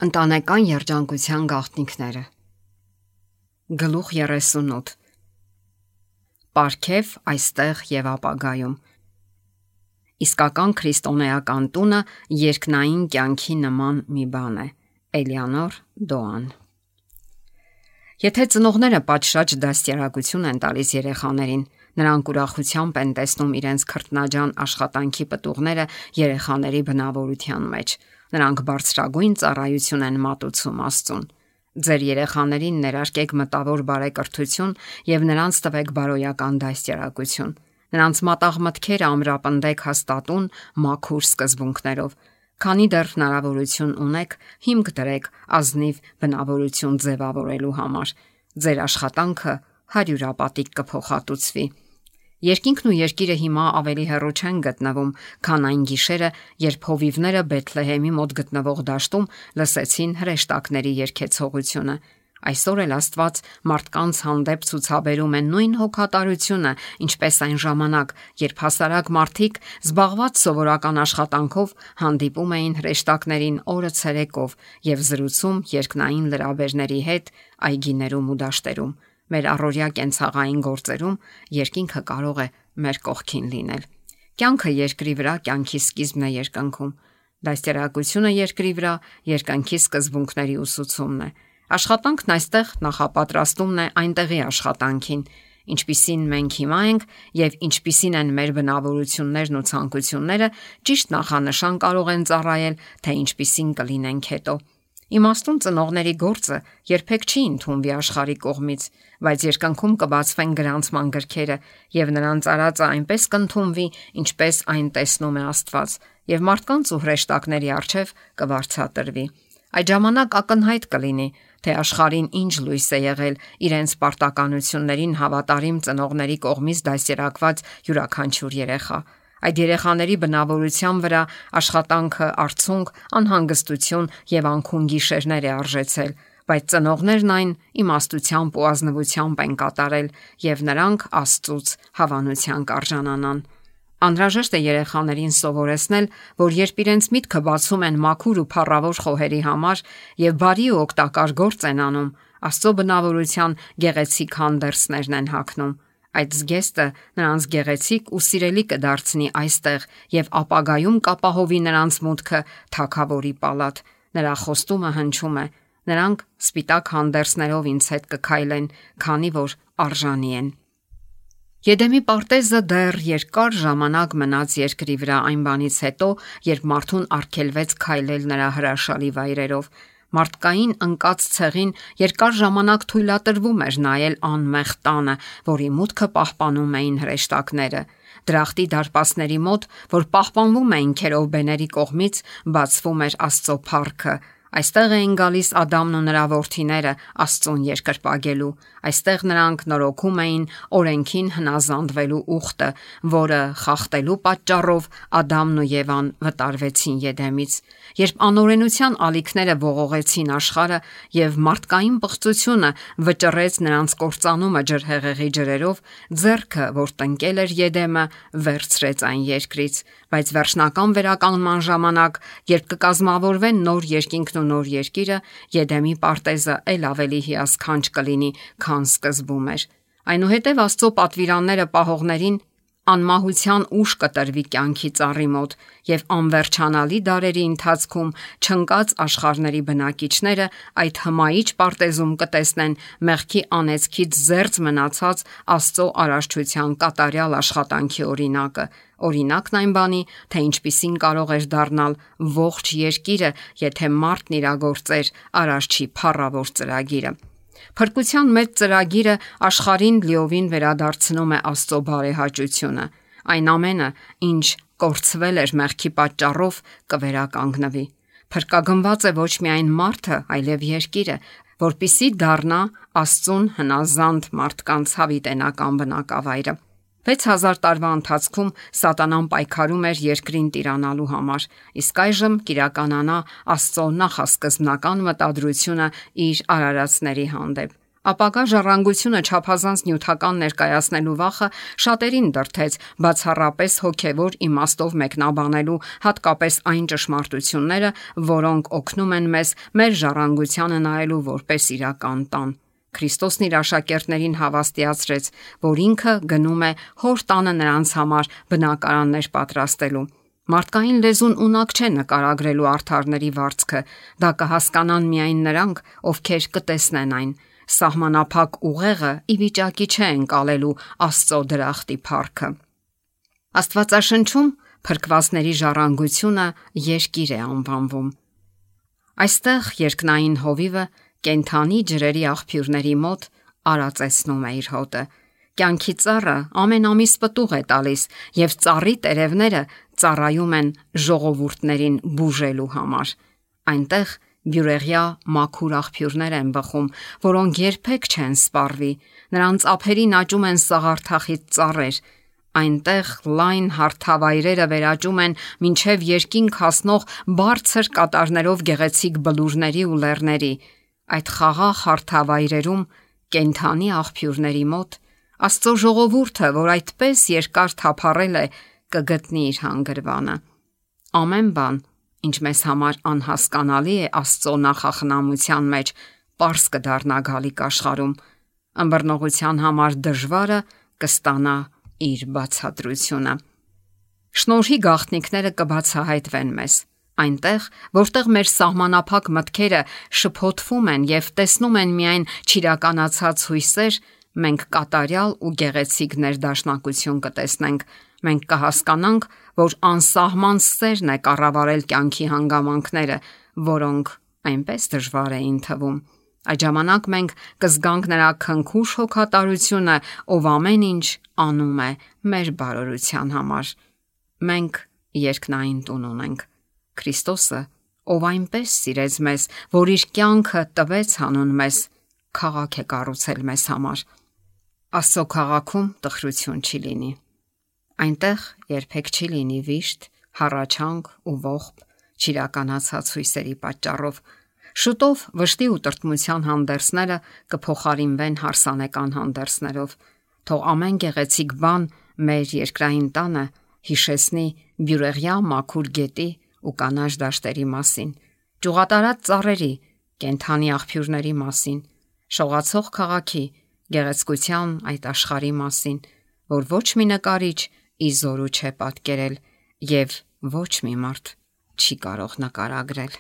Ընտանեկան երջանկության գաղտնիքները։ Գլուխ 38 Պարգև այստեղ եւ ապագայում։ Իսկական քրիստոնեական տունը երկնային կյանքի նման մի բան է։ Էլեանոր Դոան։ Եթե ծնողները պատշաճ դաստիարակություն են տալիս երեխաներին, նրանք ուրախությամբ են տեսնում իրենց քրտնաջան աշխատանքի պտուղները երեխաների բնավորության մեջ։ Նրանք բարձրագույն ծառայություն են մատուցում Աստծուն։ Ձեր երեխաներին ներարկեք մտավոր բարեկրթություն եւ նրանց տվեք բարոյական դաստիարակություն։ Նրանց մատաղ մտքերը ամրապնդեք հաստատուն, մաքուր սկզբունքներով։ Քանի դեռ հնարավորություն ունեք, հիմք դրեք ազնիվ բնավորություն ձևավորելու համար։ Ձեր աշխատանքը հարյուրապատիկ կփոխհատուցվի։ Երկինքն ու երկիրը հիմա ավելի հեռու չեն գտնվում, քան այն գիշերը, երբ հովիվները Բեթլեհեմի մոտ գտնվող դաշտում լսեցին հրեշտակների երգեցողությունը։ Այսօր էլ Աստված մարդկանց հանդեպ ցուցաբերում է նույն հոգատարությունը, ինչպես այն ժամանակ, երբ հասարակ մարդիկ զբաղված սովորական աշխատանքով հանդիպում էին հրեշտակներին օրը ցերեկով եւ զրուցում երկնային լրաբերների հետ այգիներում ու դաշտերում։ Մեր առօրյա կենցաղային գործերում երկինքը կարող է մեր կողքին լինել։ Կյանքը երկրի վրա կյանքի սկիզբն է երկնքում։ Դաստիարակությունը երկրի վրա երկնքի սկզբունքների ուսուցումն է։ Աշխատանքն այստեղ նախապատրաստումն է այնտեղի աշխատանքին, ինչպիսին մենք հիմա ենք եւ ինչպիսին են մեր բնավորություններն ու ցանկությունները, ճիշտ նախանշան կարող են ծառայել, թե ինչպիսին կլինենք հետո։ Իմաստուն ծնողների գործը երբեք չի ընդունվի աշխարհի կողմից, բայց երկնքում կբացվեն գրանցման գրքերը եւ նրանց արածը այնպես կընդունվի, ինչպես այն տեսնում է Աստված, եւ մարդկանց ու հրեշտակների առջև կվարձատրվի։ Այդ ժամանակ ակնհայտ կլինի, թե աշխարհին ինչ լույս է եղել իրենց պարտականություններին հավատարիմ ծնողների կողմից դաստիարակված յուրաքանչյուր երեխա։ Այդ երեխաների բնավորության վրա աշխատանքը արցունք, անհանգստություն եւ անքուն գիշերներ է արժեցել, բայց ծնողներն այն իմաստությամբ ու ազնվությամբ են կատարել եւ նրանք Աստծուց հավանության կարժանանան։ Անհրաժեշտ է երեխաներին սովորեցնել, որ երբ իրենց միտքը բացում են մաքուր ու փառավոր խոհերի համար եւ բարի ու օգտակար գործ են անում, Աստծո բնավորության գեղեցիկ հանդերձներն են հագնում։ Այդ զգեստը նրանց գեղեցիկ ու սիրելի կդարձնի այստեղ եւ ապագայում կապահովի նրանց մուտքը թագավորի պալատ։ Նրա խոստումը հնչում է. նրանք սպիտակ հանդերձներով ինձ հետ կքայլեն, քանի որ արժանի են։ Եդեմի պարտեզը դեռ երկար ժամանակ մնաց երկրի վրա այն բանից հետո, երբ մարդուն արգելվեց քայլել նրա հրաշալի վայրերով։ Մարդկային ընկած ցեղին երկար ժամանակ թույլատրվում էր նայել անմեղ տանը, որի մուտքը պահպանում էին հրեշտակները։ Դրախտի դարպասների մոտ, որ պահպանվում էին քերովբեների կողմից, բացվում էր Աստծո փառքը։ Այստեղ էին գալիս Ադամն ու նրա որդիները Աստծուն երկրպագելու։ Այստեղ նրանք նորոգում էին օրենքին հնազանդվելու ուխտը, որը խախտելու պատճառով Ադամն ու Եվան վտարվեցին Եդեմից։ Երբ անօրենության ալիքները ողողեցին աշխարհը եւ մարդկային պղծությունը վճռեց նրանց կործանումը ջրհեղեղի ջրերով, ձեռքը, որ տնկել էր Եդեմը, վերցրեց այն երկրից։ Բայց վերջնական վերականգնման ժամանակ, երբ կկազմավորվեն նոր երկինքն ու նոր երկիրը, Եդեմի պարտեզը ել ավելի հիասքանչ կլինի, քան սկզբում էր։ Այնուհետև Աստծո պատվիրանները պահողներին անմահության ուժ կտրվի կյանքի ծառի մոտ եւ անվերջանալի դարերի ընթացքում չընկած աշխարհների բնակիչները այդ հմայիչ պարտեզում կտեսնեն մեղքի անեծքից զերծ մնացած Աստծո արարչության կատարյալ աշխատանքի օրինակը։ Օրինակն այն բանի, թե ինչպիսին կարող էր դառնալ ողջ երկիրը, եթե մարդն իրագործեր արարչի փառավոր ծրագիրը։ Փրկության մեծ ծրագիրը աշխարհին լիովին վերադարձնում է Աստծո բարեհաճությունը։ Այն ամենը, ինչ կորցվել էր մեղքի պատճառով, կվերականգնվի։ Փրկագնված է ոչ միայն մարդը, այլև երկիրը, որպիսի դառնա Աստծուն հնազանդ մարդկանց հավիտենական բնակավայրը։ 6000 տարվա ընթացքում Սատանան պայքարում էր երկրին տիրանալու համար, իսկ այժմ կիրականանա Աստծո նախասկզբնական մտադրությունը իր արարածների հանդեպ։ Ապագա ժառանգությունը չափազանց նյութական ներկայացնելու վախը շատերին դրդեց բացառապես հոգևոր իմաստով մեկնաբանելու հատկապես այն ճշմարտությունները, որոնք օգնում են մեզ մեր ժառանգությանը նայելու որպես իրական տան։ Քրիստոսն իր աշակերտներին հավաստիացրեց, որ ինքը գնում է հոր տանը նրանց համար բնակարաններ պատրաստելու։ Մարդկային լեզուն ունակ չէ նկարագրելու արդարների վարձքը, դա կհասկանան միայն նրանք, ովքեր կտեսնեն այն։ Սահմանափակ ուղեղը ի վիճակի չէ ընկալելու Աստծո դրախտի փառքը։ Աստվածաշնչում փրկվածների ժառանգությունը երկիր է անվանվում։ Այստեղ երկնային հովիվը կենթանի ջրերի աղբյուրների մոտ արածեցնում է իր հոտը։ Կյանքի ծառը ամեն ամիս պտուղ է տալիս, եւ ծառի տերևները ծառայում են ժողովուրդներին բուժելու համար։ Այնտեղ բյուրեղյա մաքուր աղբյուրներ են բխում, որոնք երբեք չեն սպառվի։ Նրանց ափերին աճում են սաղարթախիտ ծառեր։ Այնտեղ լայն հարթավայրերը վերաճում են մինչև երկինք հասնող բարձր կատարներով գեղեցիկ բլուրների ու լեռների։ Այդ խաղաղ հարթավայրերում կենթանի աղբյուրների մոտ Աստծո ժողովուրդը, որ այդպես երկար թափառել է, կգտնի իր հանգրվանը։ Ամեն բան, ինչ մեզ համար անհասկանալի է Աստծո նախախնամության մեջ, պարզ կդառնա գալիք աշխարհում։ Ըմբռնողության համար դժվարը կստանա իր բացատրությունը։ Շնորհի գաղտնիքները կբացահայտվեն մեզ։ Այնտեղ, որտեղ մեր սահմանափակ մտքերը շփոթվում են եւ տեսնում են միայն չիրականացած հույսեր, մենք կատարյալ ու գեղեցիկ ներդաշնակություն կտեսնենք։ Մենք կհասկանանք, որ անսահման սերն է կառավարել կյանքի հանգամանքները, որոնք այնպես դժվար էին թվում։ Այդ ժամանակ մենք կզգանք նրա քնքուշ հոգատարությունը, ով ամեն ինչ անում է մեր բարօրության համար։ Մենք երկնային տուն ունենք։ Քրիստոսը, ով այնպես սիրեց մեզ, որ իր կյանքը տվեց հանուն մեզ, քաղաք է կառուցել մեզ համար։ Աստծո քաղաքում տխրություն չի լինի։ Այնտեղ երբեք չի լինի վիշտ, հառաչանք ու ողբ, չիրականացած հույսերի պատճառով։ Շուտով վշտի ու տրտմության հանդերձները կփոխարինվեն հարսանեկան հանդերձներով։ Թող ամեն գեղեցիկ բան մեր երկրային տանը հիշեցնի բյուրեղյա մաքուր գետի ու կանաչ դաշտերի մասին, ճյուղատարած ծառերի, կենթանի աղբյուրների մասին, շողացող քաղաքի, գեղեցկության այդ աշխարհի մասին, որ ոչ մի նկարիչ ի զորու չէ պատկերել եւ ոչ մի մարդ չի կարող նկարագրել։